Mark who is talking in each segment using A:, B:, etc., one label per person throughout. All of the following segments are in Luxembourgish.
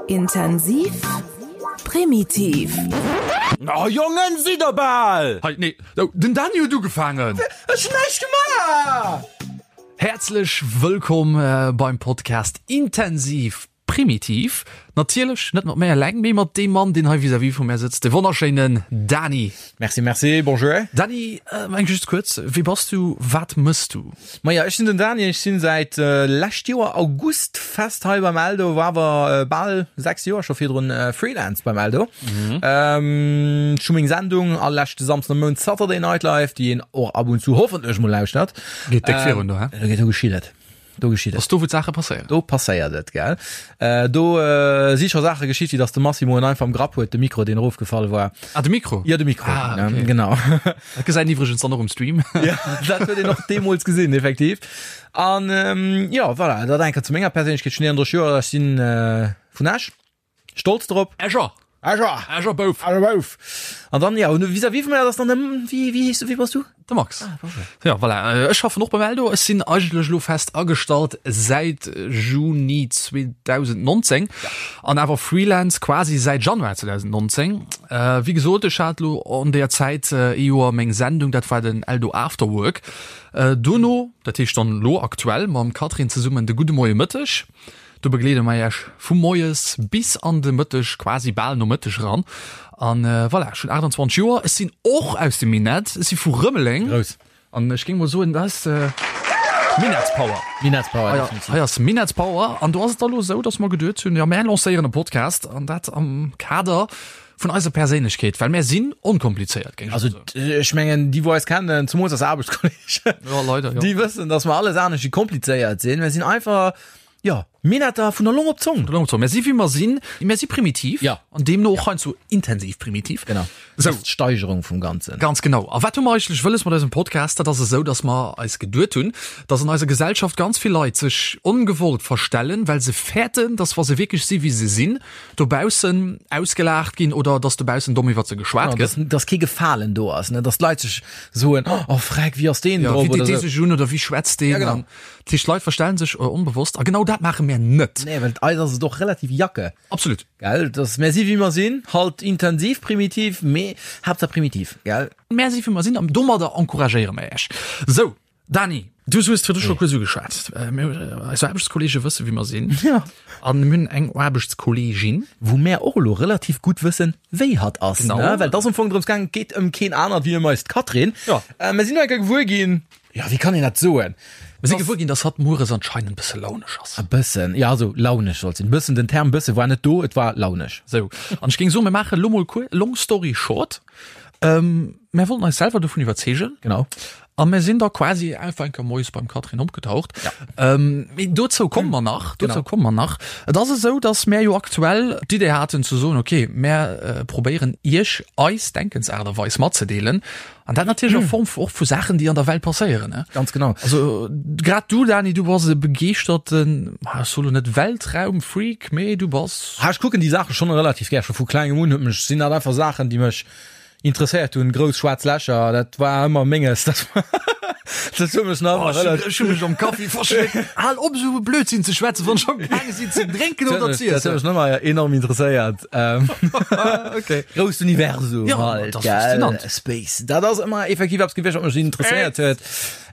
A: Intensiv, primitiv.
B: Oh Jongen, sidd der bal!
C: Hei, nee, den Dany huet ugefaangen!
B: Ech hunn näischt gemaach!
C: Häerzlech wëllkomm beim Podcast Intensiv Primitiv. Natierlech net mat mär eleng, mee mat deem Mann, deen hei vis-à-vis vu mär sëtzt, de wonnerschéinen Dany.
B: Merci, merci, bonjour.
C: Dany, eng just kuerz, Wie bass du, wat mëss du?
B: Maja, ech sinn den Dany, ech sinn säit lescht Joer August fest hei beim Eldo, war awer bal 6 Joer scho virdrun Freelance beim Eldo. Ech hu meng Sendung all leschte Samsden am Mount Saturday Night Live, déi een och ab und zu hoffentlech mol lauschtert.
C: Geet déck virun do, hä?
B: Do geet, do geschitt et. Do geschitt et.
C: Ass do wou d'Saache passéieren?
B: Do passéiert et, gell. Do si scho Saache geschitt, wéi datt de Massimo en einfach am Grapp huet, de Mikro, deen erofgefall war.
C: Ah, de Mikro?
B: Jo, de Mikro,
C: ah, okay.
B: genau.
C: Dat gesäit een iwwregens dann och um Stream.
B: Ja, dat huet een och deemools gesinn, effektiv. An jo, voilà, dat enker zu menger Perséinlechkeet. Ech hunn 31 Joer, ech si vun Esch. Stolz drop.
C: Escher.
B: Escher.
C: Escher Bouf.
B: Escher Bouf. An dann, ja, und vis-à-vis vun mir, dat ass dann de, wéi, wéi heeschs du, wie bass du?
C: De Max.
B: Ah, bonjour.
C: Ja, voilà. Ech schaffen och beim Eldo. Ech sinn eigentlech elo fest agestallt säit Juni 2019 an awer Freelance quasi säit Januar 2019. Wéi gesot, ech hat elo an där Zäit ee Joer meng Sendung, dat war den Eldo Afterwork. Dono, dat heescht dann elo aktuell mam Catherine zesummen de Gudde Moie Mëtteg. Do begleede mer Iech vu moies bis an de Mëtteg, quasi bal Nomëtteg eran. An voilà, ech hunn 28 Joer, ech sinn och aus dem Minett, ech si vu Rëmeleng.
B: Grouss.
C: An ech géing mol soen, dat ass Minettspower.
B: Minettspower, definitiv.
C: Hei ass Minettspower. An do ass et da lo esou, dass mer geduet hunn, jo, mär lancéieren e Podcast an dat am Kader vun eiser Perséinlechkeet, well mär sinn onkomplizéiert, géing ech
B: Also
C: mol soen.
B: ech mengen, déi wou eis kennen, zemools eis Aarbechtskolleegen,
C: Jo, leider, jo.
B: déi wëssen, dass mer alles anescht wéi komplizéiert sinn. Mer sinn einfach Jo, Minetter vun der Long op d'Zong.
C: Vun der Long op d'Zong. Mär si wéi mer sinn. Mär si primitiv.
B: Ja.
C: An deemno och heiansdo intensiv primitiv.
B: Genau.
C: Sou.
B: Dat ass d'Steigerung vum Ganzen.
C: Ganz genau. A wat hu mer eigentlech wëlles mat eisem Podcast? Dat ass esou, dass mer eis geduet hunn, dass an eiser Gesellschaft ganz vill Leit sech ongewollt verstellen, well se fäerten, dass wa se wierklech si wéi se sinn, dobaussen ausgelaacht ginn oder dass dobaussen domm iwwert se geschwat
B: Genau,
C: gëtt.
B: dass, dass kee Gefalen do ass, ne? Dass d'Leit sech soen, Oh, freck, wéi ass deen
C: Ja,
B: drop?
C: wéi
B: Oder
C: deet dee
B: sou.
C: sech un oder wéi schwätzt deen?
B: Ja, genau.
C: An Dat heescht, d'Leit verstellen sech onbewosst a genau dat maache mär net.
B: Nee, well eis ass et och relativ jacke.
C: Absolut.
B: Gell, dass mär si wéi mer sinn, halt intensiv primitiv, mee Haaptsaach primitiv, gell?
C: Mär si wéi mer sinn an domadder encouragéiere mer Iech. Sou, Dani, du hues virdru scho kuerz ugeschwat, mir, eis Aarbechtskolleege wësse wéi mer sinn.
B: Ja.
C: An mir hunn eng Aarbechtskolleegin.
B: Wou mär och elo relativ gutt wëssen, wéi hatt ass,
C: Genau.
B: ne? Well et ass am Fong drëms gaangen, et geet ëm keen anert wéi ëm eist Catherine.
C: Ja.
B: Mer sinn elo eng Kéier gewuer ginn, Jo, wéi kann een dat soen?
C: Mir si gewuer ginn, dass hatt mueres anscheinend bësse launesch ass.
B: E bëssen, jo, also launesch sollt sinn. Bëssen, den Term bësse war net do, et war launesch.
C: Sou, an ech géing soen, mir maachen elo mol kuer, long story short, mir wollten eis selwer dovun iwwerzeegen.
B: Genau.
C: A mir sinn da quasi einfach eng Kéier moies beim Catherine opgetaucht.
B: Ja.
C: Mee dozou komme mer nach, dozou komme mer nach. Et ass esou, dass mär jo aktuell d'Idee haten ze soen, okay, mär probéieren Iech eis Denkensaart a Weis matzedeelen. An dat natierlech a Form och vu Saachen, déi an der Welt passéieren. Ne?
B: Ganz genau.
C: Also grad du, Dani, du bass e begeeschterten, ah, ech soe lo net Weltraumfreak, mee du bass.
B: Ha, ech kucken déi Saache schonn relativ gär. Scho vu klengem un huet mech, sinn dat einfach Saachen, déi mech interesséiert hunn. Grouss schwaarz Lächer, dat war ëmmer menges. Dat war, dat huet mech nach
C: Oh,
B: ëmmer
C: ech
B: relativ.
C: ech hu mech am Kaffi verschléckt. Hal op esou e Blödsinn ze schwätzen, wann ech am gaange sinn ze drénken oder ze
B: Dat huet
C: iessen.
B: mech nach ëmmer enorm interesséiert. Ähm,
C: Okay.
B: Grousst Universum
C: Ja,
B: halt,
C: dat ass
B: gell?
C: faszinant.
B: Space. Dat ass ëmmer effektiv eppes gewiescht, wat mech interesséiert huet.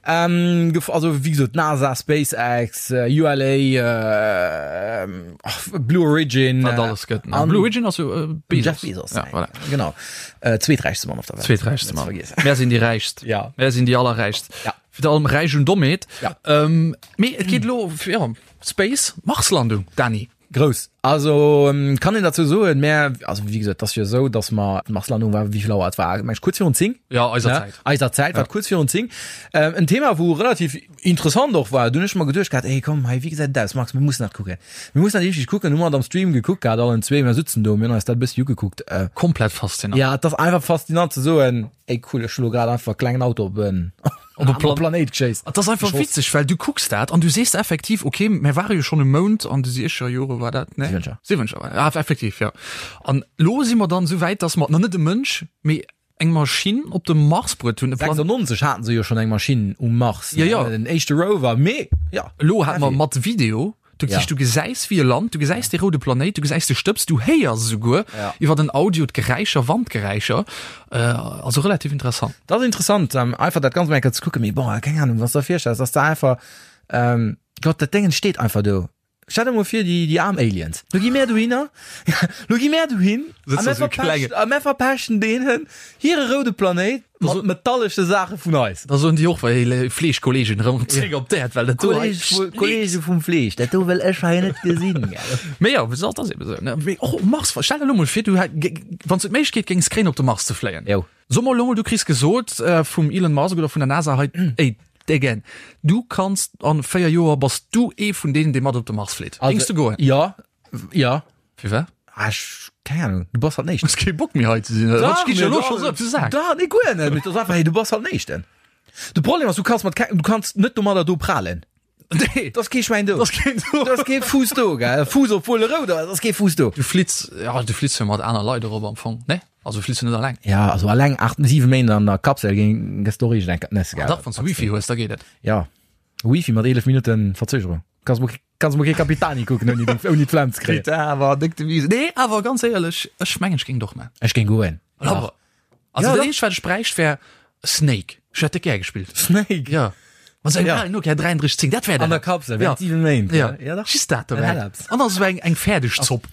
B: Ähm, gef- also wéi gesot, NASA, SpaceX, äh, ULA, äh, ach, Blue Origin.
C: Wat
B: äh,
C: alles gëtt. Ne?
B: an
C: Blue Origin ass jo äh, Bezos.
B: Jeff Bezos.
C: Ja, voilà.
B: Genau. Äh, zweeträichste Mann op der Welt.
C: Zweeträichste
B: Net
C: Mann.
B: ze vergiessen.
C: Mär sinn déi Räichst.
B: Ja.
C: Mär sinn déi allerräichst.
B: Ja.
C: Fir allem Räich un Dommheet.
B: Ja.
C: Ähm, mee et geet elo fir ja, Space, Marslandung, Dani.
B: Grouss. Also kann een derzou soen, mä also wéi gesot, et ass jo esou, datt mer, d'Marslandung war, wéi vill Auer et war, meng ech kuerz virun 10.
C: Ja, eiser
B: ne?
C: Zäit.
B: Eiser Zäit, war et kuerz virun 10. Ähm, en Thema wou relativ interessant och war, dunn hunn ech mer geduecht gehat, ey komm hei, wéi gesäit et aus, Max, mir mussen dat kucken. Mir mussen dat richteg kucken. Hu mer et am Stream gekuckt gehat, allen zwee, mir sutzen do, mir hunn eis dat e bëssi ugekuckt. Äh,
C: Komplett faszinant.
B: ja, et ass einfach faszinant ze soen, ey cool, ech hu lo grad einfach e klengen Auto op en
C: Op e Plan
B: Planéit geschéisst.
C: Et ass einfach
B: Geschoss.
C: witzeg, well du kucks dat an du sees effektiv, okay, mir ware jo schonn um Mound an de siechzeger Jore war dat, ne?
B: Siwwenzeger.
C: Siwwenzeger war dat, ah, effektiv, ja. An lo si mer dann esou wäit, dass mer, na net e Mënsch, mee eng Maschinn op de Mars bruet hunn, e Plan
B: 96 haten se jo schonn eng Maschinn um Mars,
C: Ja, ja.
B: den éischte Rover, mee ja.
C: Elo hate mer mat Video. Du, ja. du gesäis wéi e Land, du gesäis de roude Planéit, du gesäis de Stëbs, du héiers esouguer ja. iwwer den Audio d'Geräischer, Wandgeräischer. Äh, also relativ interessant.
B: Dat ass interessant, ähm, einfach dat ganz enker ze kucken. Mee bon, keng Ahnung, was der virstellst, ass da einfach ähm, Gott, dat Déngen steet einfach do. Stell dir mol vir, déi, déi aarm Aliens. Lo gi mär dohinner, lo gi mär dohin a mär verpechten, a mär verpechten deenen hire roude Planéit mat metallesche Saache vun eis.
C: Da soen déi och, wéi Fleeschkolleegen erëm zréck op d'Äerd, well dat do
B: hei Kollege vum Fleesch, dat do wëll ech hei net gesinn, gell.
C: Mee jo, wéi gesot, dat ass eben esou, ne. Mee och um Mars, stell der elo mol vir, du hätt, wann s du d'Méiglechkeet géings kréien, op de Mars ze fléien.
B: Jo.
C: So mol elo mol, du kriss gesot vum Elon Musk oder vun der NASA hei, ey Deggen, du kanns an 4 Joer bass du ee vun deenen, dee mat op de Mars flitt.
B: Géings du goen? Jo, jo.
C: Firwat?
B: Ah, ech, keng Ahnung, du bass halt den Éischten.
C: Hues kee Bock méi hei ze sinn, oder? Dach, Ginn ech elo scho sou op de Sak.
B: Dach, nee, guer net. Mee et ass einfach, hey, du bass halt den Éischten. De Problem ass, du kanns mat keng, du kanns net domadder do prahlen.
C: Nee.
B: Et ass kee Schwäin do.
C: Et ass keen do.
B: Et ass kee Fuuss do, gell? Fuuss, obwuel e rout ass, et ass kee Fuuss do.
C: Du flitts, ja, du flitts jo mat aner Leit erop am Fong, ne? Also du flitts jo net alleng.
B: Ja, also alleng 8, 7 Méint an der Kapsel géing, gëss du och iergend eng Nässe, gell?
C: Ah dach, wann s du Wifi hues, da geet et.
B: Ja, Wifi mat 11 Minutten Verzögerung. Kanns mol, kanns mol kee Capitani kucken, ouni, ouni d'Flemm ze kréien.
C: Bitte, awer déck Devise. Nee, awer ganz éierlech, ech mengen, ech géing et och man.
B: Ech géing goen.
C: Awer, Also
B: Ja,
C: dat
B: doch.
C: eenzegt wat ech bräicht wär Snake. Ech hätt dat gär gespillt.
B: Snake?
C: Ja. Mat sengem
B: Ja.
C: alen Nokia 3310, dat wär
B: An der
C: dat.
B: Kapsel,
C: Ja.
B: während 7 Méint.
C: Ja.
B: ja dach.
C: Just dat
B: Dat
C: dobäi.
B: hätt eppes.
C: An da sou eng, eng fäerdeg Zopp.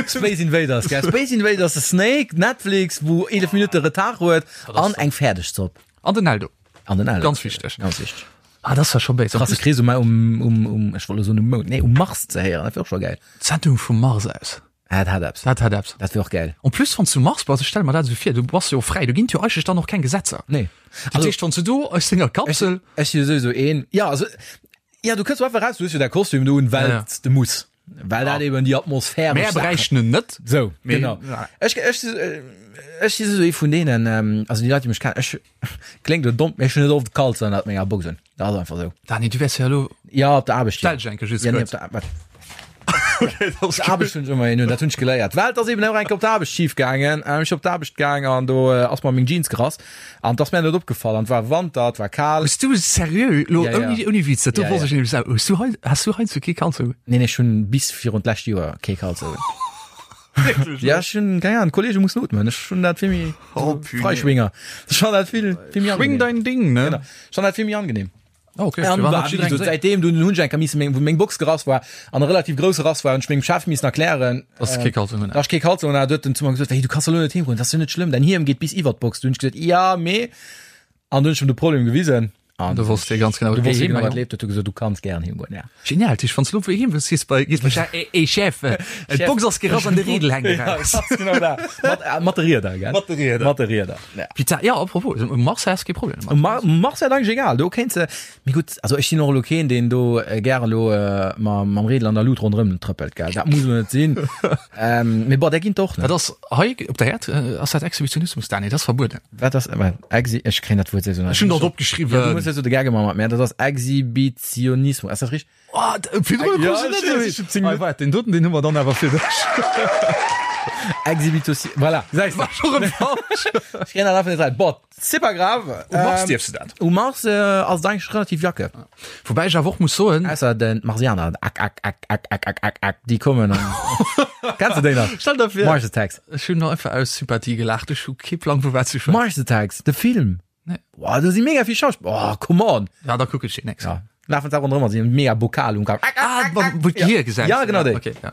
B: Space Invaders, gell? Space Invaders, de Snake, Netflix, wou 11 Minutte Retard huet, an eng fäerdeg Zopp.
C: An den Eldo.
B: An den Eldo.
C: Ganz wichteg.
B: Ganz wichteg.
C: Ah, dat ass ja scho béis.
B: Krasse Krees um, um, um, um, ech wollt elo soen um Mound, nee, um Mars ze héieren, dat wär och scho gäil.
C: D'Sendung vum Mars aus.
B: Ah, dat hat eppes.
C: Dat hat eppes.
B: Dat wär och gäil.
C: En plus, wann s du um Mars bass, ech stelle mer dat esou vir, du bass jo fräi, do ginn et jo eigentlech dann och keng Gesetzer.
B: Nee.
C: Dat heescht, wann s du do aus denger Kapsel.
B: Ech si jo souwisou een, ja, also, ja, du kënns jo einfach raus, du hues jo däi Kostüm do un, well
C: Ja, ja.
B: s de muss. Well dat eben déi atmosphäresch
C: Mär
B: Saachen.
C: bräichten en net.
B: Sou,
C: Mee,
B: genau.
C: ja.
B: Ech, ech, ech si souwisou ee vun deenen, also déi Leit, déi mech kennen, ech, kléngt elo domm, mee ech hunn net oft Kalz ënnert menger Box un. Dat ass einfach sou.
C: Dani, du wäers jo elo.
B: Ja, op der Aarbecht.
C: Stell dech eng Kéier just
B: Ja, nee,
C: kuerz.
B: op der, wat? Op der Aarbecht hunn ech ëmmer een un, dat hunn ech geléiert. Well et ass eben och eng Kéier op der Aarbecht schif gaangen. Ech op d'Aarbecht gaang an do ass mer meng Jeans gerass an et ass mär net opgefall an et war Wanter, et war kal.
C: Hues du seriö elo
B: Ja, ja.
C: ouni, ouni Witz, dat do
B: Ja,
C: wosst
B: ja.
C: ech nämlech selwer, hues du hei, has du heiansdo kee Kalzong un?
B: Nee, nee, ech hunn bis virun d'lescht Joer kee Kalzong un. Ja, ech hunn, keng Ahnung, Kollege mussen ootmen. Ech hunn dat vill méi
C: Oh, punaise.
B: Freischwinger. Ech fann dat vill, vill méi
C: Schwing
B: angenehm.
C: dein Ding, ne?
B: Genau. Ech fann dat vill méi angenehm.
C: Oh, okay.
B: An
C: Firwat
B: war,
C: hat
B: wie
C: jiddereen
B: gesot,
C: gesehen?
B: seitdem dunn hunn ech eng Kéier missen meng, wou meng Box gerass war an e relativ grousse Rass war, hunn ech mengem Chef missen erklären,
C: Dass du kee Kalzong un
B: dass ech kee Kalzong un hat. Huet en zu mer gesot, hey, du kanns elo net heem goen, dat ass jo net schlëmm, däin Hiem geet bis iwwert d'Box. Du hunn ech gesot, ja, mee. An dunn hunn ech em de Problem gewisen. An
C: Du wosst jo ganz genau,
B: du wosst
C: wéi
B: jo genau,
C: heem,
B: wat leeft. Huet e gesot, du kanns gären heem goen, ja.
C: Genial, Tisch, wann du elo heem wëlls, gees bei, gees bei Chef, ey, ey, Chef, äh, d'Box ass gerass an de Riedel hänkt
B: Ja,
C: eraus.
B: ganz genau dat. Mat, äh, mat de Rieder, gell?
C: Mat de Rieder.
B: Mat de Rieder, ja.
C: Putain, ja, apropos, um Mars häss kee Problem domat.
B: Um Mar Mars wär et eigentlech egal, do kéints de, mee gutt, also ech sinn och elo keen, deen do äh, gäre elo äh, ma, mam Riedel an der Lut ronderëm trëppelt, gell? Dat muss elo net sinn. Ähm, mee bon, där ginn et och, ne?
C: Dat ass hei op der Äerd, äh, ass dat Exhibitionismus, Dani, dat ass verbueden.
B: Wat ass, wat, Exhi, ech kréien dat Wuert sowieso net.
C: Ech hunn dat
B: Ja, du
C: opgeschriwwen.
B: muss jo de Gag ëmmer mat mär, dat ass Exhibitionismus, ass dat richteg?
C: Oh, virdrun
B: Ja,
C: krus ech
B: ech
C: net
B: weess, ech hunn 10
C: Ei, waart, deen doten, deen hu mer dann awer fir dech.
B: Exhibitosi, voilà, gesäis de.
C: War scho rëm falsch.
B: Ech kréien dat einfach net rein. Bon, c'est pas grave.
C: Um Mars
B: Ähm,
C: dierfs de dat.
B: Um Mars äh, ass et eigentlech relativ Jacke.
C: Woubäi ech awer och muss soen.
B: Ausser den Marsianer, ak, ak, ak, ak, ak, ak, ak, ak, déi kommen an. Kenns de déi nach?
C: Stell der vir.
B: Mars Attacks.
C: Ech hunn einfach aus Sympathie gelaacht. Ech hu kee Plang vu wat s du schwätz.
B: Mars Attacks, de Film.
C: Nee.
B: Boah, do si mega vill Schauspiller. Oh, come on.
C: Ja, da kuck ech deen nächst.
B: Ja. Lafen se ronderëm a si hunn mega Bokal um Kapp. Ak, ak,
C: Ah,
B: ak,
C: wa-
B: ak.
C: wou d'Gehier gesäis.
B: Ja, genau déi.
C: Okay, ja.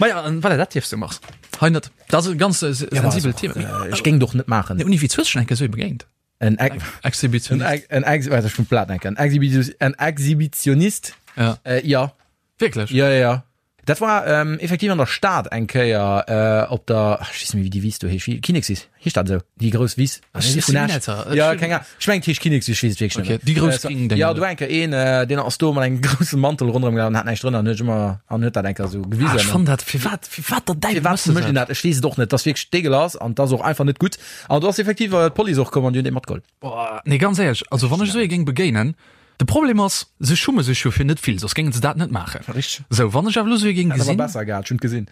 C: Ma ja, an voilà, dat dierfs du Mars. Hei net. Dat ass e ganz äh, sensibelt Thema.
B: Äh, Ech géing doch net maachen.
C: Nee, Uni, wéi hues du schon eng Kéier sou ee begéint?
B: En Ex
C: Exhibitionist.
B: En Ex en Ex warte, ech muss d'Blat denken. En Exhibition en Exhibitionist.
C: Ja.
B: Äh, ja.
C: Wierklech?
B: Ja, ja, ja. Dat war ähm, effektiv an der Stad eng Kéier äh, op der ach, ech weess net méi, wéi déi Wiss do heescht. Wéi Kinnekswiss, heescht dat esou? Déi grouss Wiss?
C: Ech
B: Vun
C: sinn
B: Esch.
C: net, ech
B: Ja,
C: hunn-
B: keng Ahnung. Ech mengen, et heescht Kinnekswiss, ech weess et wierklech
C: Okay,
B: net méi.
C: déi grouss
B: Äh, so-
C: gréng Dénger
B: Ja,
C: do.
B: do war eng Kéier een, äh, deen ass do mat engem grousse Mantel ronderëm gelaf an hat näischt drënner an huet ëmmer an huet dat eng Kéier esou gewisen.
C: Ah, ech fann dat, firwat, firwat der Däiwel
B: Firwat
C: méchs de
B: mécht een
C: dat?
B: dat? Ech weess et och net. Dat ass wierklech dégueulasse an dat ass och einfach net gutt. An do ass effektiv äh, d'Police och komm an déi hunn dee matgeholl.
C: Boah, nee, ganz éierlech, also wann ech esou ee géing begéinen, de Problem ass, se schumme sech jo fir net vill, soss géinge se dat net maachen.
B: Richteg.
C: Sou, wann ech awer elo esou ee géing
B: Hätt awer
C: gesinn,
B: besser gehat, ech hunn et gesinn.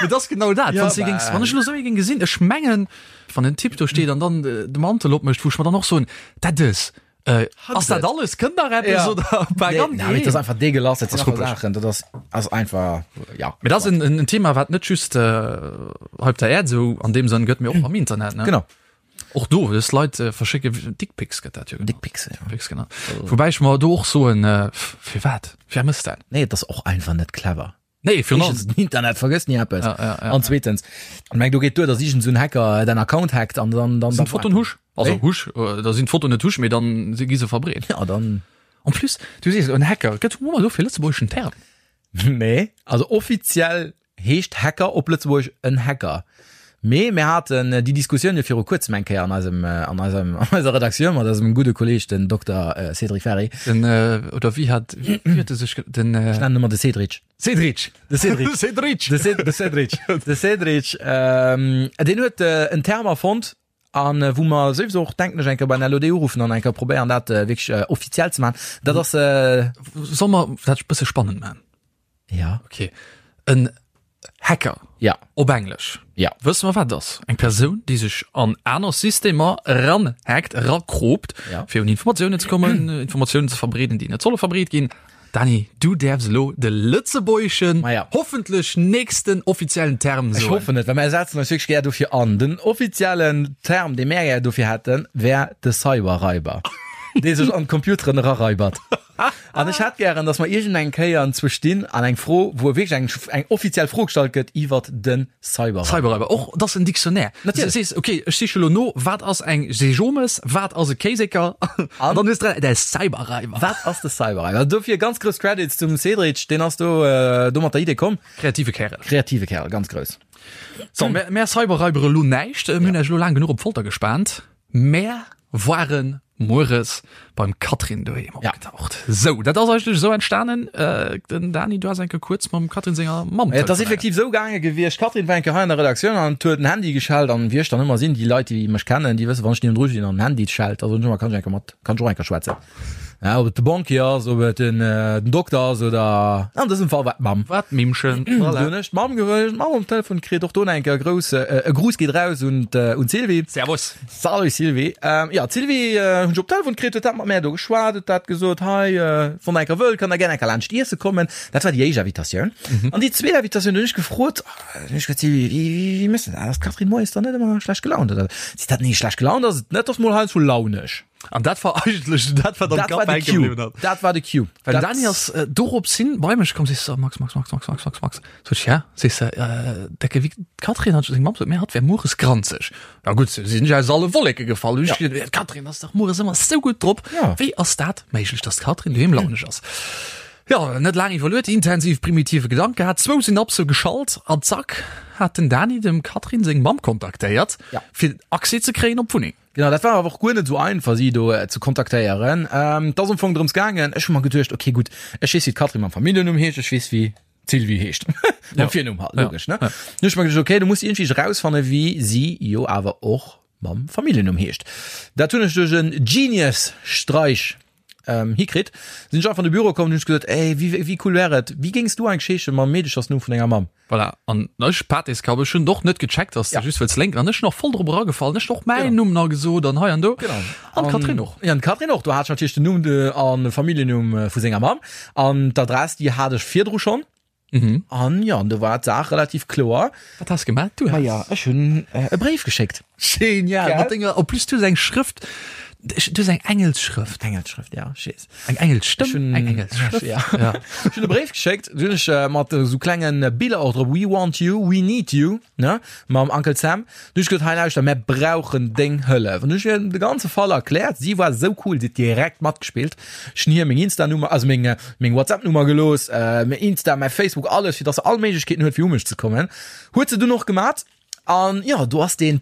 C: Mee dat ass genau dat,
B: Ja,
C: wann s de géings,
B: bah.
C: wann ech elo esou ee géing gesinn, ech mengen, wann en Typ do steet an dann de Mantel opmécht, wou ech mer dann och soen, dat ass. Äh, ass dat alles? Kënnt nach eppes
B: Ja.
C: oder
B: Nee,
C: bergan?
B: nee, dat ass einfach dégueulasse, dat
C: Ass
B: sinn einfach
C: ruppeg.
B: Saachen, dat ass, ass einfach, ja.
C: Mee dat ass en, en en Thema, wat net just äh, hei op der Äerd esou an deem Sënn gëtt, mee och am Internet, ne?
B: Genau.
C: Och do, dës Leit äh, verschécke Dickpics gëtt dat jo genannt.
B: Dickpics, ja.
C: Dickpics genannt. Wobäi ech mer do och soen, äh, firwat? Wer mësst dat?
B: Nee, et ass och einfach net clever.
C: Nee, virun allem.
B: Éischtens, den Internet vergësst ni eppes.
C: Ja, ja, ja,
B: An zweetens, ich meng, do geet duer, dass iergend esou en Hacker däin Account hackt an dann, dann,
C: Sinn d'Fotoen husch? Also
B: Wéi?
C: husch, äh, da sinn d'Fotoen net husch, mee dann si gi se verbreet.
B: Ja, dann.
C: En plus, du sees en Hacker, gëtt hu mer do fir lëtzebuergeschen Term?
B: Nee, also offiziell heescht Hacker op Lëtzebuergesch en Hacker. Mee mir haten déi Diskussioun jo viru kuerzem eng Kéier an eisem, an eisem, an eiser Redaktioun mat eisem gudde Kolleeg, den Dokter Cédric Ferry.
C: Den, oder wéi hat, wéi huet e sech, den.
B: Ech nennen ëmmer de Cédric.
C: Cédric!
B: De Cédric.
C: Cédric!
B: De Cé, de Cédric. De Cédric, deen huet en Term erfonnt, an wou mer souwisou och, denken ech, eng Kéier beim LOD uruffen an eng Kéier probéieren, dat wierklech offiziell ze maachen. Dat ass.
C: Solle mer dat e bësse spannend maachen?
B: Ja.
C: Okay. En Hacker.
B: Ja.
C: Op Englesch.
B: Ja.
C: Wësse mer wat et ass? Eng Persoun, déi sech an aner Systemer eranhackt, erakropt,
B: Ja.
C: fir un Informatiounen ze kommen, Informatiounen ze verbreeden, déi net solle verbreet ginn. Dani, du däerfs elo de lëtzebuergeschen,
B: Ma ja.
C: hoffentlech nächsten offiziellen Term
B: Ech
C: soen.
B: hoffen et, well mär setzen eis wierklech gär dofir an. Den offiziellen Term, dee mär gär dofir hätten, wär de Cyberraiber, dee sech an d'Computeren eraraibert. An ech hätt gären, dass mer iergend eng Kéier entzwou stinn an eng Fro, wou wierklech eng, eng offiziell Fro gestallt gëtt iwwert de Cyberraiber.
C: Cyberraiber, och dat ass en Dictionnaire.
B: Natierlech.
C: Du sees, okay, ech siche lo no, wat ass eng Sejomes, wat ass e Kéiseker? An dann hues de de Cyberraiber.
B: Wat ass de Cyberraiber? Dofir ganz grouss Credits zum Cédric, deen ass do, do mat der Idee komm.
C: Kreative Kärel.
B: Kreative Kärel, ganz grouss.
C: So, mär, mär Cyberraibere lo näischt. Mir hunn iech lo laang genuch op d'Folter gespaant. Mär waren mueres beim Catherine doheem opgetaucht. Sou, dat ass eigentlech esou entstanen. Den Dani, du has eng Kéier kuerz mam Catherine senger Mamm
B: Et ass
C: telefonéiert.
B: effektiv esou gaange gewiescht, d'Catherine war eng Kéier hei an der Redaktioun an huet den Handy geschellt an wéi ech dann ëmmer sinn, déi Leit, déi mech kennen, déi wëssen, wann ech niewendru stinn an den Handy schellt, da soen ech ëmmer, kann ech eng Kéier mat, kann ech och eng Kéier schwätzen. Ja, ob et de Banquier ass, ob et den, äh, den Dokter ass oder an dësem Fall war d'Mamm.
C: War d'Mimmchen.
B: Voilà. Hunn ech d'Mamm ge d'Mamm um Telefon kritt, och do eng Kéier grouss, äh, e Gruss geet raus un un d'Sylvie.
C: Servus.
B: Salut Sylvie. Ähm, ja, d'Sylvie äh, hunn ech op Telefon kritt, huet dat mat mär do geschwat, huet dat gesot, hei, äh, wann der eng Kéier wëllt, kann der gär eng Kéier laanscht iesse kommen. Dat war déi éischt Invitatioun. Mhm. An déi zweet Invitatioun hunn ech gefrot, hunn ech gesot, Sylvie, wéi, wéi, wéi méchs de dat? Ass d'Catherine moies dann net ëmmer schlecht gelaunt oder? Seet dat, nee, schlecht gelaunt ass et net, ass mol heiansdo launeg.
C: An dat war eigentlech dat wat am
B: Dat war
C: Kapp
B: de
C: hänke
B: Cue.
C: gebliwwen hat.
B: Dat war de Cue.
C: Well
B: Dat-
C: Dani ass äh, dorops hin bei mech komm, sees du, Max, Max, Max, Max, Max, Max, Max. Sot ech, ja, sees du, äh, decke wéi d'Catherine hat seng Mamm sot, mir hatt wär mueres granzeg. Ja gutt, se sinn ech aus alle Wolleke gefall. Hunn ech
B: Ja.
C: geduet, d'Catherine ass dach mueres ëmmer sou gutt drop.
B: Ja.
C: Wéi ass dat méiglech, dass d'Catherine doheem launeg ass? Ja, net laang iwwerluet, intensiv primitive Gedank gehat, zwou Synapse geschalt an zack hat den Dani dem Catherine seng Mamm kontaktéiert,
B: Ja.
C: fir Accès ze kréien op d'Wunneng.
B: Genau, dat war awer och guer net esou einfach, si do ze kontaktéieren. Et ass am Fong drëms gaangen, ech hu mer geduecht, okay gutt, ech weess, wéi d'Catherine mam Familljennumm heescht, ech weess, wéi d'Sylvie heescht, mam Virnumm halt, logesch, ne? Dann hu ech mer geduecht, okay, du muss iergendwéi erausfanne wéi si jo awer och mam Familljennumm heescht. Dat hunn ech duerch en Genius-Streich hikritt. Sinn ech einfach an de Büro komm an hunn ech gesot, ey, wéi, wéi cool wär et, wéi géings du eigentlech heesche mam Meedechersnumm vun denger Mamm?
C: Voilà, an ech, Pateskapp, ech hunn och net gecheckt, dass de
B: Ja.
C: just wëlls lénken. An ech sinn och voll drop eragefall. Ech hunn och mäin
B: Genau.
C: Numm nach gesot an hei an do.
B: Genau.
C: An d'Catherine och.
B: Ja, an d'Catherine och. Do hat ech natierlech den Numm de, an de Familljennumm vu senger Mamm. An d'Adress, déi hat ech virdru schonn.
C: Mhm.
B: An jo, an do war d'Saach relativ kloer.
C: Wat has gemaat? Du has.
B: Maja, ech hunn e Bréif geschéckt.
C: Genial!
B: Gell?
C: Mat denger, en plus du hues eng Schrëft, du hues eng Engelsschrëft.
B: Engelsschrëft, ja, ech weess.
C: Eng Engelsstëmm,
B: Ech hunn,
C: eng Engelsschrëft.
B: Ja.
C: Ja.
B: Ech hunn e Bréif geschéckt, do hunn ech mat esou klenge Biller och drop, We want you, we need you, ne, mam Uncle Sam. Du hunn ech gesot, hei lauschter, mär brauchen deng Hëllef. An du hunn ech hir de ganze Fall erkläert. Si war esou cool, si huet direkt matgespillt. Ech hunn hir meng Insta-Nummer, also meng, meng WhatsApp-Nummer gelooss, mäin Insta, mäi Facebook, alles, fir dass se all Méiglechkeeten huet, fir u mech ze kommen. Huet se dunn och gemat. An jo, do ass deen,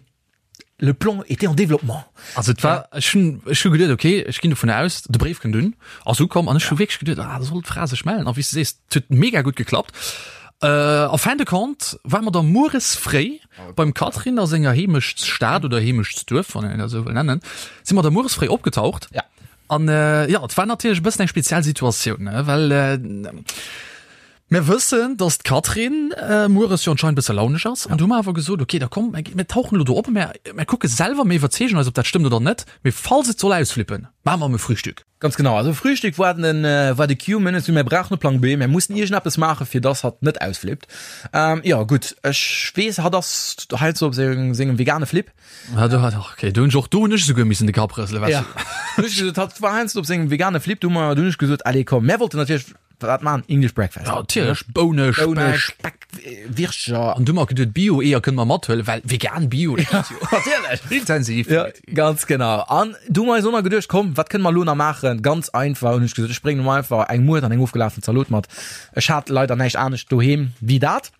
B: le plan était en développement.
C: Also et war, ech hunn, ech hu geduet, okay, ech ginn dovun aus, de Bréif kënnt un, ass ukomm an ech hu wierklech geduet, ah, da soll d'Fra sech mellen. A wéi s de sees, et huet mega gutt geklappt. En fin de compte ware mer da mueres fréi beim Catherine a senger Heemechtsstad oder Heemechtsduerf, wann een dat esou wëll nennen, si mer da mueres fréi opgetaucht.
B: Ja.
C: An jo, et war natierlech e bëssen eng speziell Situatioun, ne, well. Mir wëssen, dass d'Catherine mueres jo anscheinend bësse launesch ass. An du hu mer awer gesot, okay, da komm, mir tauchen elo do op, mir, mir kucke selwer, mir iwwerzeegen eis, ob dat stëmmt oder net. Mee falls et soll ausflippen, maache mer em e Frühstück.
B: Ganz genau. Also Frühstück war den, war de Cue. Mir hunn mir brauchen e Plang B, mir mussen iergendeppes maachen, fir dass hatt net ausflippt. Jo, gutt, ech weess, hatt ass heiansdo op sengem vegane Flip.
C: Ja, du hat, okay, du hunn ech och, do hunn ech esouguer missen de Kapp rëselen,
B: weißt du. Ja, hunn ech gesot, hatt war heiansdo op sengem vegane Flip, du hu mer, du hunn ech gesot, allez komm, mär wollten natierlech wat man, English Breakfast.
C: Ja, natierlech, Boune,
B: Boune, Speck, Wirtscher.
C: An du hu mer geduet, Bio-Eeër kënne mer mathuelen, well vegan Bio, dat geet jo.
B: Natierlech.
C: Intensiv.
B: Ja, ganz genau. An du hu mer eis och nach geduecht, komm, wat kënne mer elo nach maachen? Ganz einfach, hunn ech gesot, ech bréngen elo einfach eng Muert an eng ofgelafen Zalot mat. Ech hat leider näischt anescht doheem wéi dat.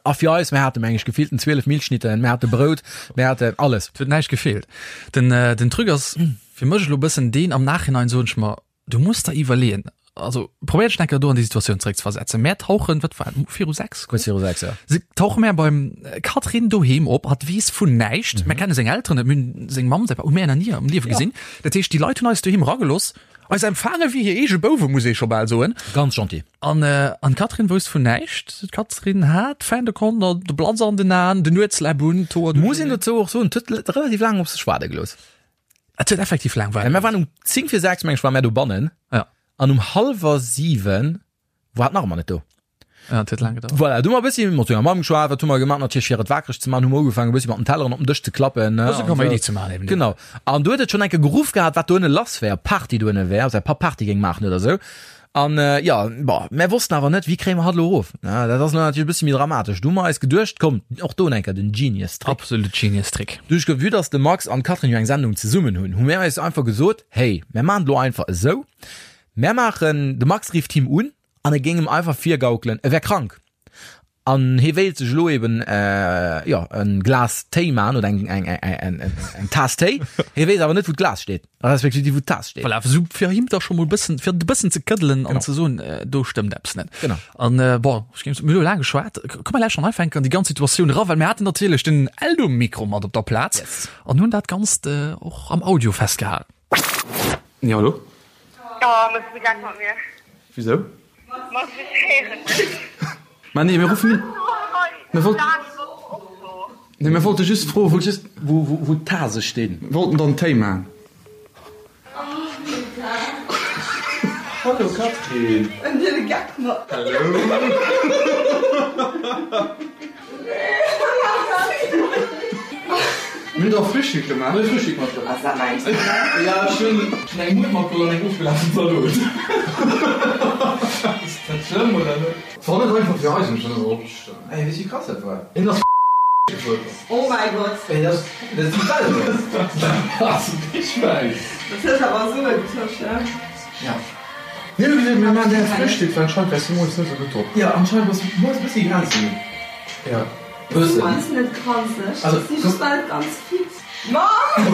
B: A fir eis, mir hate meng ech gefillten 12 Milchschnitten, mir hate Brout, mir haten alles.
C: Et huet näischt gefeelt. Den, den Truc ass fir mech elo bëssen deen, am Nachhinein soen ech mer, du muss der iwwerleeën, also probéier dech eng Kéier do an déi Situatioun zeréckzeversetzen. Mär tauchen, wat war et, viru 6?
B: Kuerz viru 6, ja.
C: Se tauche mär beim Catherine doheem op, hatt weess vun näischt, mär kenne seng Elteren net, mir hunn seng Mamm, säi Papp hu mär nach ni am Liewe gesinn. Dat heescht, déi Leit hunn eis doheem eragelooss, eis empfaange wéi hir eege Bouwe, muss ee scho bal soen.
B: Ganz gentil.
C: An an d'Catherine wousst vun näischt. D'Catherine hat fin de compte de Blatz an den Aen, den Nuetsläpp un,
B: d'Hoer Muss een dozou och soen, et huet relativ laang op sech waarde gelooss.
C: Et huet effektiv laang
B: waarde
C: gelooss.
B: Mir waren um 10 vir 6, meng ech, ware mär dobannen.
C: Ja.
B: An um hallwer 7 war et nach ëmmer net do.
C: Ja, et huet laang gedauert.
B: Voilà, du hu mer e bëssi mat senger Mamm geschwat, wat hu mer gemaach? Natierlech fir et waakreg ze maachen, hu mer ugefaangen e bëssi mat den Telleren op den Dësch ze klappen, ne?
C: Bësse Kaméidi ze maachen eben.
B: Genau. An du huet et schonn eng Kéier geruff gehat, wat do ënne lass wär, ob Party do ënne wär, ob säi Papp Party géing maachen oder esou. An jo, bon, mär wossten awer net, wéi kréie mer hatt elo erof? Ne, dat ass elo natierlech e bëssi méi dramatesch. Du hu mer eis geduecht, komm, och do eng Kéier den Genius Trick.
C: Absolut Genius Trick.
B: Duerch vue dass de Max an d'Catherine jo eng Sendung zesummen hunn, hu mär eis einfach gesot, hey, mär maachen et elo einfach esou, mär maachen, de Max rifft him un an e géing em einfach virgaukelen, e wär krank an hie wéilt sech elo eben jo en Glas Téi man oder eng eng eng eng Taass Téi. Hie weess awer net wou d'Glas steet, respektiv wou d'Taass steet.
C: Voilà, esou fir him da scho mol bëssen, fir e bëssen ze këddelen an ze soen, do stëmmt eppes net.
B: Genau.
C: An bon, ech géing soen, mir hu laang geschwat, komm mer lauschteren einfach enk an déi ganz Situatioun era, well mir haten natierlech den Eldo-Mikro mat op der Plaz an hunn dat Ganzt och am Audio festgehalen.
D: Jo, hallo?
E: Oh, mëss du Geck mat mir?
D: Wisou?
E: Ma ech héieren dech.
D: Ma nee, mir ruffen un. Mir wollt. Nee, mir wollte just froen, wou.
B: Just wou, wou, wou d'Tase stinn.
D: Mir wollten dann Téi maachen.
B: Hallo Catherine.
E: En huet e Geck mat mir.
D: Hallo. Mir hunn der Frühstück gemaach.
B: Mir hu Frühstück matgeholl.
E: Ass dat mäin
B: Ja, ech hunn eng Muert matgeholl an eng ofgelafen Zalot. Ass dat schlëmm oder net?
D: War net einfach fir eis, ech hunn dat opgeschriwwen.
B: Ey, weess wéi krass dat war?
D: Hien ass gefuer.
E: Oh mäi Gott.
B: Ey, dat dat ass déi Welt.
D: Dat ass déi Schwäin.
E: Dat huet awer Sue getosch, ne?
B: Ja.
D: Mir hu gesot, mir maachen direkt Frühstück, well anscheinend waars du moies net esou gutt drop.
B: Ja, anscheinend bass du moies e bëssi granzeg.
D: Ja.
B: Bëssen.
E: Moies net granzeg,
B: Also,
E: ech si just nach net ganz fit. Mamm!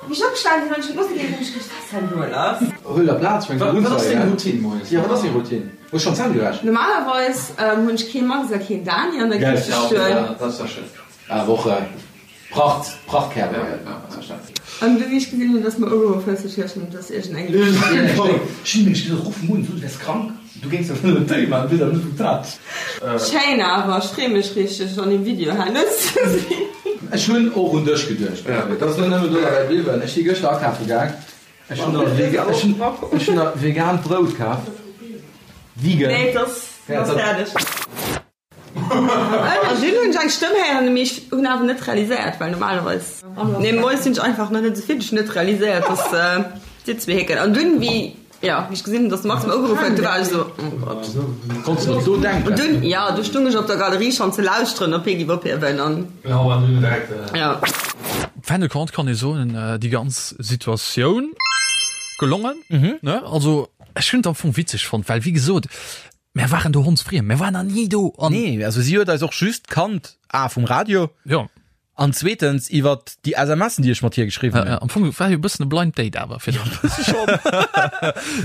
E: Wéi ech opgestanen sinn an ech hunn d'Musek héieren, hunn ech geduecht, wat ass denn do lass?
B: Huel der Plaz, fänks
D: Wat
B: un
D: ass
B: ze
D: deng
B: heien.
D: Routine moies?
B: Ja, wat ass deng Routine? Hues schonn d'Zänn gewäsch?
E: Normalerweis hunn ech kee Max a keen Dani an der Kiche stoen.
B: Dat ass ja schön. Ah, Woche. Pracht, Prachtkerl.
E: An du wéi ech gesinn hunn, dass mer ugeruff hues, ech gedacht hunn, et ass iergend eng
B: Ech hunn nämlech gesot, ruff em un, so du wäers krank, du géings der wëllen en Téi maachen, du weess awer net wou d'Tat.
E: Schéin awer, ech free mech richteg an dem Video herno ze sinn.
B: Ech hunn och un dech geduecht, David, et ass elo nëmmen do derbäi bliwwen. Ech si gëschter akafe gaang, ech hunn der vegan, ech hunn, ech hunn der vegaant Brout kaf, vegan.
E: Nee, et ass fäerdeg. An dunn hunn ech eng Stëmm héieren, mee ech hunn awer net realiséiert, well normalerweis, nee, moies sinn ech einfach nach net esou fit, ech hunn net realiséiert, dass dir zwee héckelt. An dunn, wéi, jo, wéi ech gesinn hunn, dass de Max mer ugeruff huet, du war ech esou, oh Gott.
B: Konns de net do denken?
E: An dunn, jo, du stung ech op der Galerie schonn ze lauschteren, ob hie giff ophiewen an, jo.
C: Fin de compte kann ee soen, déi ganz Situatioun gelongen, ne? Also ech hunn et am Fong witzeg fonnt, well wéi gesot, Mär waren do hondsfriem, mär waren nach ni do
B: an. Nee, also si huet eis och just kannt, A vum Radio.
C: Jo.
B: An zweetens iwwer déi SMSen, déi ech mat hir geschriwwen
C: hunn. Am Fong war jo e bëssen e Blind Date awer fir dech. Bësse schonn.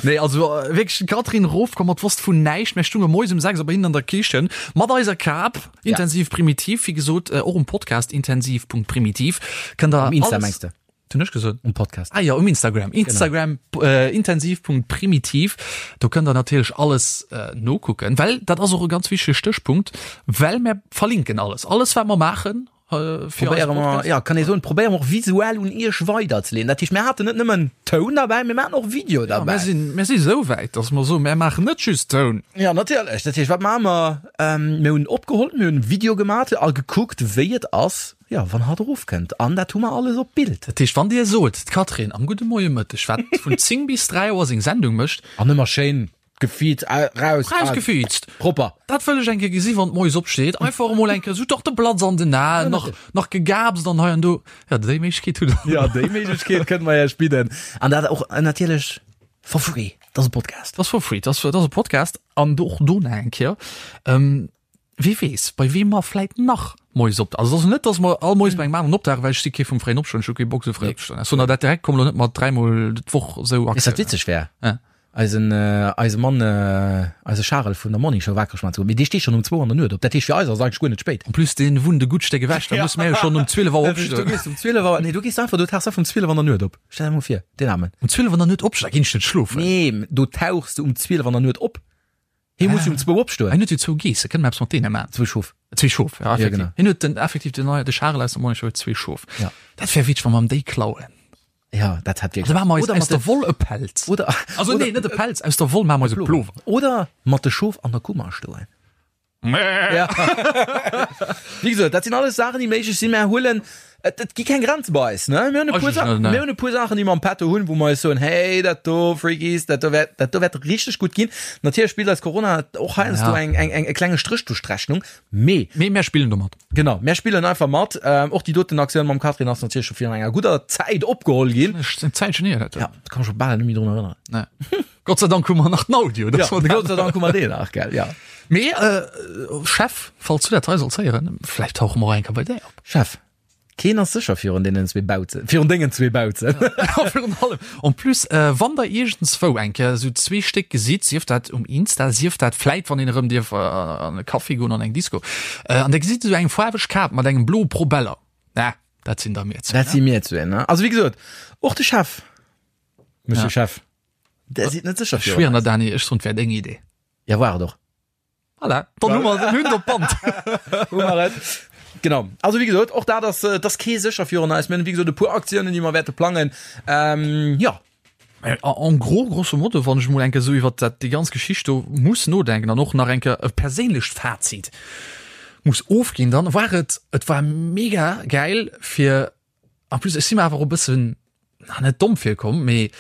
C: Nee, also wierklech d'Catherine erofkomm, mat wosst vun näischt. Mär stounge moies um 6 Auer bei hinnen an der Kichen mat eiser Kap, Intensiv Primitiv, wéi gesot, och um Podcast intensiv.primitiv kënnt der
B: Um Insta
C: alles.
B: mengs de?
C: Hunn ech gesot?
B: Um Podcast.
C: Ah jo, um Instagram. Instagram äh, intensiv.primitiv. Do kënnt der natierlech alles äh, nokucken, well dat ass och e ganz wichtege Stéchpunkt, well mär verlinken alles. Alles wat mer maachen äh, fir eise
B: Probéiere mer,
C: Podcast.
B: ja, kann ee soen, probéiere mer och visuell un iech weiderzeleeën. Dat heescht, mir haten net nëmmen Toun derbäi, mir maachen och Video
C: Ja,
B: derbäi.
C: mär sinn, mär si sou wäit, dass mer soen, mär maachen net just Toun.
B: Ja, natierlech. Dat heescht, wat maache mer? Ähm, mir hunn opgeholl, mir hunn Video gemaat a gekuckt, wéi et ass, Jo, wann hatt erofkënnt. An dat hu mer alles op Bild.
C: Dat heescht, wann Dir sot, d'Catherine am Gudde Moie Mëtteg, wat vun 10 bis 3 Auer seng Sendung mécht.
B: An ëmmer schéin gefiizt raus.
C: Rausgefiizt.
B: Propper.
C: Dat wëll ech eng Kéier gesi wann d'Moies opsteet. Einfach emol eng Kéier esou dach de Blatz an den Aen, nach, nach gegaapst an hei an do. Jo, déi Méiglechkeet hutt Der.
B: Jo, déi Méiglechkeet kënne mer Iech bidden. An dat och natierlech for free. Dat ass e Podcast.
C: Dat ass for free. Dat ass, dat ass e Podcast. An och do nach eng Kéier. Wie weess, bei weem mer vläit nach moies op. Also et ass net, datt mer all moies bei engem aneren opdauchen, well ech si kee vum fréien Opstoen, ech hu kee Bock esou fréi opzestoen. Ech soen der dat direkt, komm elo net mat dräimol d'Woch esou
B: Weess wat
C: Aktiounen.
B: witzeg wär?
C: Ja.
B: Eisen, eise Mann, eise Charel vun der Morning Show wakereg maachen ze goen, mee dee steet schonn um zwou an der Nuet op. Dat heescht fir eis ass et eigentlech guer net spéit.
C: En plus dee wunnt e gutt Stéck ewech, da musse mär jo schonn um 12 Auer
B: Du
C: opstoen.
B: gees um 12 Auer, nee du gees einfach, du tauchs einfach um 12 an der Nuet op. Stell der mol vir, deen Aarmen.
C: Um 12 an der Nuet opstoen, da ginn ech net schlofen.
B: Nee, do tauchs de um 12 an der Nuet op. Hie muss jo um zwou opstoen.
C: Hien huet jo zwou Geesse, kënne mer eppes mat deene maachen?
B: Zwou Schof.
C: Zwee Schof, ja, effektiv.
B: Ja, genau.
C: Hien huet den, effektiv den, de Charel aus der Morning Show huet zwee Schof.
B: Ja.
C: Dat wär witzeg, wa mer em déi klauen.
B: Ja, dat hätt
C: Da maache mer eis
B: Oder
C: aus
B: mat
C: der
B: de,
C: Woll e Pelz.
B: oder,
C: Also
B: oder,
C: nee, net e Pelz, aus der Woll maache mer eis e Plover.
B: Oder mat de Schof an der Kummer stoen. Ja. Wéi gesot, dat sinn alles Saachen, déi méiglech sinn. Mer huelen, et, et gi keng Grenze bei eis, ne? Mir hunn e puer Sa mir hunn e puer Saachen, déi mer am Petto hunn, wou mer eis soen, hey, dat do, Freakies, dat do wäert, dat do wäert richteg gutt ginn. Natierlech spillt eis Corona och heiansdo
C: Ja.
B: eng, eng, eng, e klenge Stréch duerch d'Rechnung, mee.
C: Mee mär spillen domat.
B: Genau, mär spillen einfach mat. Ähm, och déi doten Aktioun mam Catherine ass natierlech scho virun enger gudder Zäit opgeholl ginn.
C: Eng Zäitchen hier, dat.
B: Ja, da kann ech scho bal net méi drun erënneren.
C: Nee. Gott sei Dank hu mer nach den Audio.
B: Ja, Gott sei Dank hu mer deen nach, gell, ja.
C: Mee, äh, Chef, falls du dat hei solls héieren, vläicht tauche mer och eng Kéier bei där op.
B: Chef, keen ass sécher virun deenen zwee Bauzen, virun dengen zwee Bauzen.
C: Ja, virun allem. En plus, äh, wann der iergendzwou eng Kéier esou zwee Stéck gesitt, sief dat um Insta, sief dat vläit, wann een erëm dierf an e Café goen, an eng Disco, äh, an der gesitt esou eng faarweg Kap mat engem bloe Probeller, na, dat sinn da mir zwee.
B: Dat si mir zwee, ne? Also, wéi gesot, och de Chef, Monsieur
C: Ja.
B: Chef, der sidd net sécher
C: Ech
B: virun
C: schwieren der,
B: eis.
C: Dani, ech soen, et wär deng Idee.
B: Ja, war et och.
C: Voilà, dann hu mer den Hund op Band.
B: Hu mer et. Genau. Also wéi gesot, och dat ass, et ass kee sécher virun eis. Mir hunn wéi gesot e puer Aktiounen, déi mer wäerte plangen. Ähm, jo.
C: En gros, grosso modo, wann ech mol eng Kéier esou iwwert dat, déi ganz Geschicht do muss nodenken an och nach eng Kéier e perséinlecht Fazit muss ofginn, dann war et, et war mega gäil fir, en plus ech si mer awer och e bëssen, na net domm virkomm, mee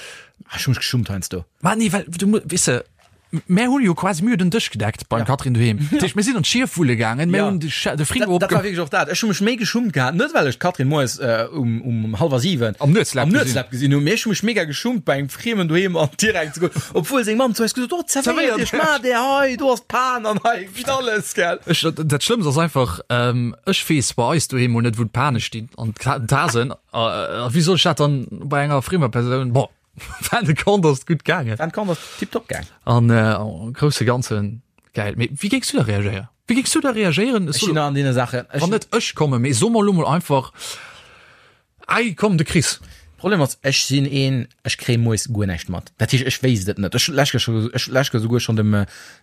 B: Ah, ech hu mech geschummt heiansdo.
C: Ma nee, well du weess de, mär hunn jo quasi, mir hunn den Dësch gedeckt beim
B: Ja.
C: Catherine doheem. Dat heescht, mir sinn an d'Schief wulle gaangen, mir
B: Ja.
C: hunn de Sche- de Frigo
B: Dat, dat war
C: opge
B: wierklech och dat. Ech hu mech méi geschummt gehat, net well ech d'Catherine moies äh, um, um hallwer 7
C: Am Nuetslab
B: am
C: gesinn.
B: Nuetslab gesinn hunn, mee ech hu mech mega geschummt bei engem Friemen doheem an direkt ze goen, obwuel seng Mamm zu eis gesot huet, oh, zerwéiert
C: Zerwéiert.
B: iech, maacht är hei, do ass d'Pan an hei gitt alles, gell.
C: Ech, dat, dat Schlëmmst ass einfach, ähm, ech weess bei eis doheem mol net, wou d'Pane stinn an d'Ka- d'Tasen. A wéi soll ech dat dann bei enger friemer Persoun? Bon, fin de compte ass et gutt gaangen.
B: Fin de compte ass tiptop gaang.
C: An am grousse Ganzen gäil. Mee wéi géings du da reagéieren? Wéi géings du da reagéieren?
B: Ech sinn an deene Saachen.
C: Wann net ech kommen, mee so mer elo mol einfach, Ei, komm, de Chris.
B: Problem ass, ech sinn een, ech kréie moies guer näischt mat. Dat heescht, ech wéisst et net. Ech hunn lech ech lech souguer schonn dem,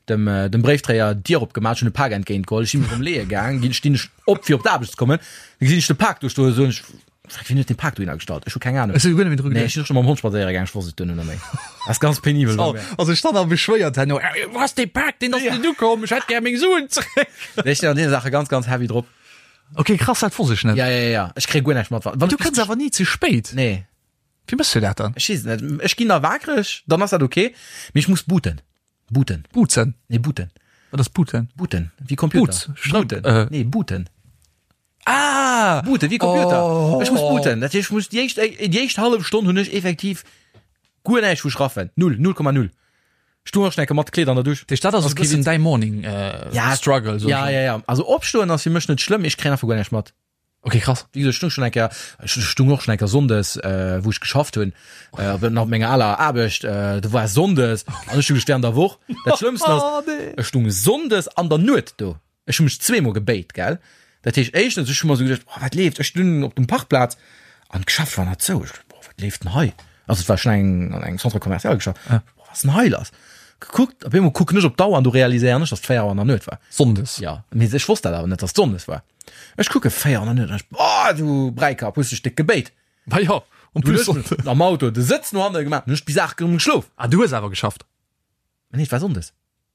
B: dem, dem Bréifdréier d'Dier opgemaach, ech hunn e Pak entgéint geholl, ech si mech erëm leeë gaang, ginn, stinn ech op fir op d'Aarbecht ze kommen, da gesinn ech de Pak do stoen, soen ech, Fuck, wien huet dee Pak dohinner gestallt? Ech hu keng Ahnung.
C: Ech si guer net méi dru
B: Nee, ech
C: geduecht.
B: sinn och scho mam Hond spadséiere gaang, ech wosst et duerno net méi. Dat ass ganz penibel bei mir.
C: Also ech stand a beschwéiert herno, Wou ass dee Pak? Deen ass net ukomm, ech hätt gär meng Suen zeréck.
B: Nee, ech sinn an deene Saache ganz, ganz heavy drop.
C: Ok, krass, dat wosst ech net.
B: Ja, ja, ja, ech kréie guer näischt mat. Wann
C: Du kënns awer ni ze spéit.
B: Nee.
C: Wéi méchs du dat dann?
B: Ech weess et net. Ech ginn da waakreg, dann ass dat ok, mee ech muss booten. Booten.
C: Boozen?
B: Nee, booten.
C: Wat ass booten?
B: Booten, wéi Computer.
C: Boots, Strëmp,
B: Booten.
C: äh.
B: Nee, booten.
C: Ah!
B: Booten, wéi Computer.
C: Oh.
B: Ech muss booten. Dat heescht, ech muss déi éischt, déi éischt hallef Stonn hunn ech effektiv guer näischt vu schraffen. Null, 0,0. Ech stoung och schon eng Kéier mat Kleed an der Dusch.
C: Dat heescht, dat ass e bëssen däi Morning
B: Ja,
C: Struggle, soen
B: Ja,
C: ech.
B: ja, ja. Also opstoen ass fir mech net schlëmm, ech kréien einfach guer näischt mat.
C: Ok, krass.
B: Wéi gesot, ech stung schon eng Kéier, ech stung och schon eng Kéier Sonndes, äh, wou ech geschafft hunn, äh, op nach op menger aler Aarbecht, äh, do war Sonndes an ech hu gest während der Woch. Dat Schlëmmsten ass,
C: Oh, nee.
B: ech stung Sonndes an der Nuet do. Ech hu mech zweemol gebéit, gell. Dat heescht éischtens, ech hu mer esou geduecht, oh, wat leeft? Ech stungen op dem Parkplaz. An d'Geschäft war nach zou. Ech, boah, wat leeft denn hei? Also et war schon eng, an engem Centre commercial Geschäft. Ja. Boah, was ist denn hei lass? Gekuckt, op eemol kucken ech op d'Auer an du realiséieren ech, dass et 4 Auer an der Nuet war.
C: Sonndes.
B: Ja, mee ech wosst dat awer net, dass et Sonndes war. Ech kucke 4 Auer an der Nuet an ech, boah, du Bräikapp, hues dech déck gebéit.
C: Ma jo,
B: en plus Sonndes. Am Auto de Sëtz no hanne gemaach, hunn ech bis 8 erëm geschlof.
C: Ah, du hues awer geschafft?
B: Nee, et war Sonndes.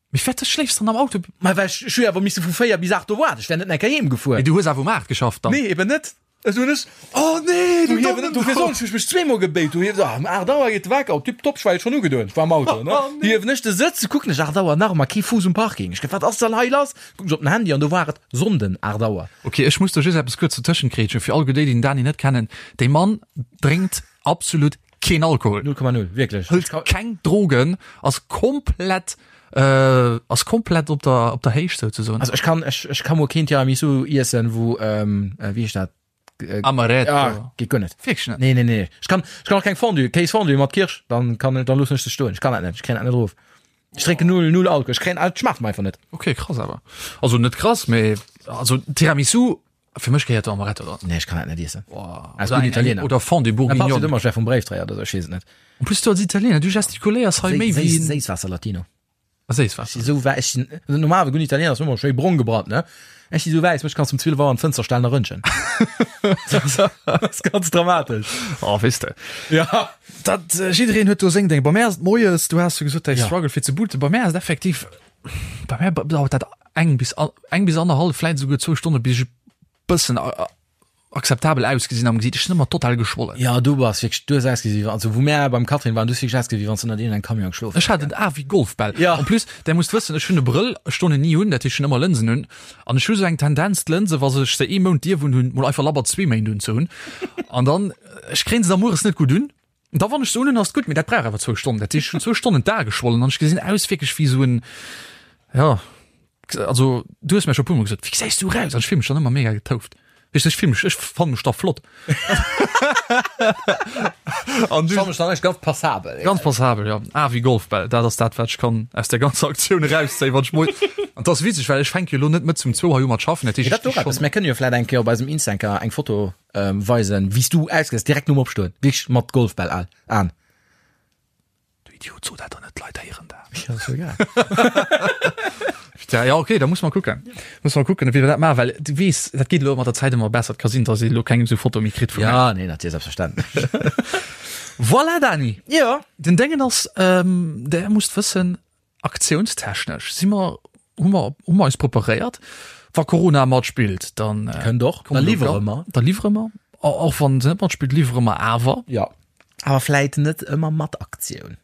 C: Mee firwat schléifs dann am Auto?
B: Ma well ech, ech hu jo awer misse vu 4 bis 8 do waarden, ech wär net enker heem gefuer.
C: Mee du hues awer um 8 geschafft
B: dann? Nee, eben net.
C: Ech hunn ech, oh nee,
B: du hiewen, dofir soen ech, hu ech mech zweemol gebéit, du hiewen, ah, um 8 Auer geet de Wecker op, tipptopp, ech war jo schonn ugedoen, ech war am Auto, ne. Oh nee. Hiewen ech de Sëtz, kucken ech 8 Auer, nach ëmmer kee Fuuss um Parking. Ech ge, wat ass dann hei lass? Kucken ech op den Handy an do war et Sonnden 8 Auer.
C: Ok, ech muss do just eppes kuerz dotëschent grätschen, fir all déi, déi den Dani net kennen, dee Mann drénkt absolut keen Alkohol.
B: 0,0, wierklech.
C: Hëlt keng Drogen, ass komplett, äh, ass komplett op der, op der Héicht souzesoen.
B: Also ech kann, ech, ech kann mol keen Tiramisu iessen, wou, ähm, äh, wéi heescht dat?
C: Äh, Amaretto.
B: Ah, geet guer net.
C: Wierklech net?
B: Nee, nee, nee. Ech kann, ech kann och keng Fondue, Kéisfondue mat Kirsch, dann kann, dann loossen ech se stoen. Ech kann dat net, ech kréien dat net erof. Ech drénken null, null Alkohol. Ech kréien, et schmaacht mer einfach net.
C: Okay, krass awer. Also net krass, mee also Tiramisu, Fir mech gehéiert do Amaretto dran.
B: Nee, ech kann dat net iessen.
C: Als gudden Italiener. Oder Fondue
B: Bourguignonne. Ëmmer schwer vum Bréifdréier oder sou, ech weess et net.
C: En plus du als Italiener, du gestikuléiers hei méi wéi.
B: Séisswaasser Latino.
C: Séisswaasser.
B: Ech si sou wäiss, ech sinn, also normal, e gudden Italiener ass ëmmer schéi brong gebrannt, ne? Ech si sou wäiss, mech kanns du um 12 Auer an d'Fënster stellen a rëntgen. Dat ass ganz dramatesch.
C: Oh, weess de.
B: Ja.
C: Dat, jiddereen huet do seng Déng. Bei mär ass et moies, du has jo gesot, däi Struggle fir ze booten. Bei mär ass et effektiv, bei mär dauert dat eng bis eng bis annerhallef, vläit esouguer zwou Stonne bis ech e bëssen akzeptabel ausgesinn am Gesiit. Ech sinn ëmmer total geschwollen.
B: Ja, du bass wierklech, du hues ausgesi wéi, also wou mär beim Catherine waren, du hues wierklech ausgesi wéi wann s du ënnert iergendengem Camion geschlof
C: Ech hat en A wéi Golfbäll.
B: Ja.
C: En plus, där musst wëssen, ech hunn e Brëll, ech doen en ni un, dat heescht ech hunn ëmmer Lënsen un an ech hu sou eng Tendenz d'Lënse, wa ech se ee Mount dierf un hunn, mol einfach labber zwee Méint unzehunn an dann, ech kréien se da mueres net gutt un. Da wann ech se unhunn ass et gutt, mee dat brauch awer zwou Stonnen. Dat heescht, ech hunn zwou Stonnen d'Ae geschwollen an ech gesinn aus wierklech wéi esou en, jo, also du hues mir scho e puermol gesot, wéi gesäis du eraus? An ech fill mech dann ëmmer mega getouft. Weess de, ech fill mech, ech fanne mech da flott.
B: An du? Ech fanne mech dann echt ganz passabel.
C: Ganz passabel, jo. A wéi Golfbäll, dat ass dat, wat ech kann aus där ganzer Aktioun erauszéien, wann ech mol, an 't ass witzeg, well ech fänke jo elo net mëtz um zwou hei u mat schaffen, dat heescht,
B: ech
C: sti
B: schonn. Mir kënnen jo vläit eng Kéier op eisem Insta eng Foto Weisen wéi s du ausgesäis direkt nom Opstoen, wierklech mat Golfbäll al an.
C: Du Idiot, so dat der net, d'Leit héieren dat.
B: Ja, ass jo egal.
C: Tja, ja okay, da muss mer kucken. Muss mer kucken, wéi wir dat maachen, well du weess, dat geet elo mat der Zäit ëmmer besser. Et ka sinn, dass ee elo keng esou Foto méi kritt
B: vu mär. Ja, nee, natierlech, selbstverständlech.
C: Voilà, Dani.
B: Jo.
C: Den Déngen ass, der musst wëssen, Aktiounstechnesch si mer, hu mer, hu mer eis preparéiert. Wa Corona matspillt, dann
B: Kënnt och, da liwwere mer.
C: Da liwwere mer. Och wann se net matspillt, liwwere mer awer.
B: Jo, awer vläit net ëmmer mat Aktioun.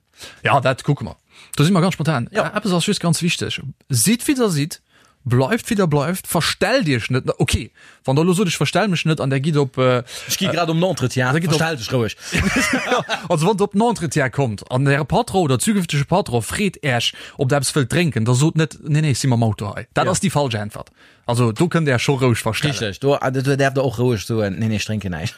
C: Ja, dat kucke mer. Do si mer ganz spontan.
B: Jo.
C: Eppes ass just ganz wichteg, Sidd wéi der sidd, bleift wéi der bleift, verstellt iech net. Ok, Wann der elo sot, ech verstell mech net an der gitt op.
B: Ech gi grad op den Entretien,
C: da gitt op.
B: Verstell dech roueg.
C: Also wann der op den Entretien kommt an äre Patron oder zukünftege Patron freet Äech, ob der eppes wëllt drénken, da sot net, nee, nee, ech si mam Auto hei. Dat ass déi falsch Äntwert. Also do kënnt Der Äech scho roueg verstellen.
B: Richteg, do, do däerft der och roueg soen, nee, nee, ech drénken näischt.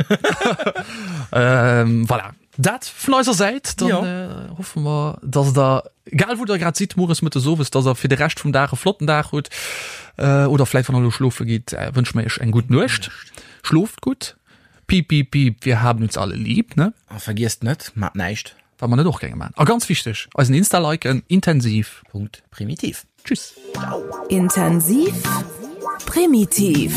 C: Voilà. Dat vun eiser Säit, dann
B: Jo.
C: äh, hoffe mer, dass der, egal wou der grad sidd, mueres, mëttes, owes, dass der fir de Rescht vum Dag e flotten Dag hutt. Äh, oder vläit wann der elo schlofe gitt, äh, wënsche mer iech eng gutt Nuecht. Schloft gutt. Piep, piep, piep, wir haben uns alle lieb, ne?
B: A vergiesst net, mat näischt.
C: Wat mer net och géinge man. A ganz wichteg, eisen Insta liken, intensiv.
B: Punkt primitiv.
C: Tschüss.
A: Intensiv, primitiv.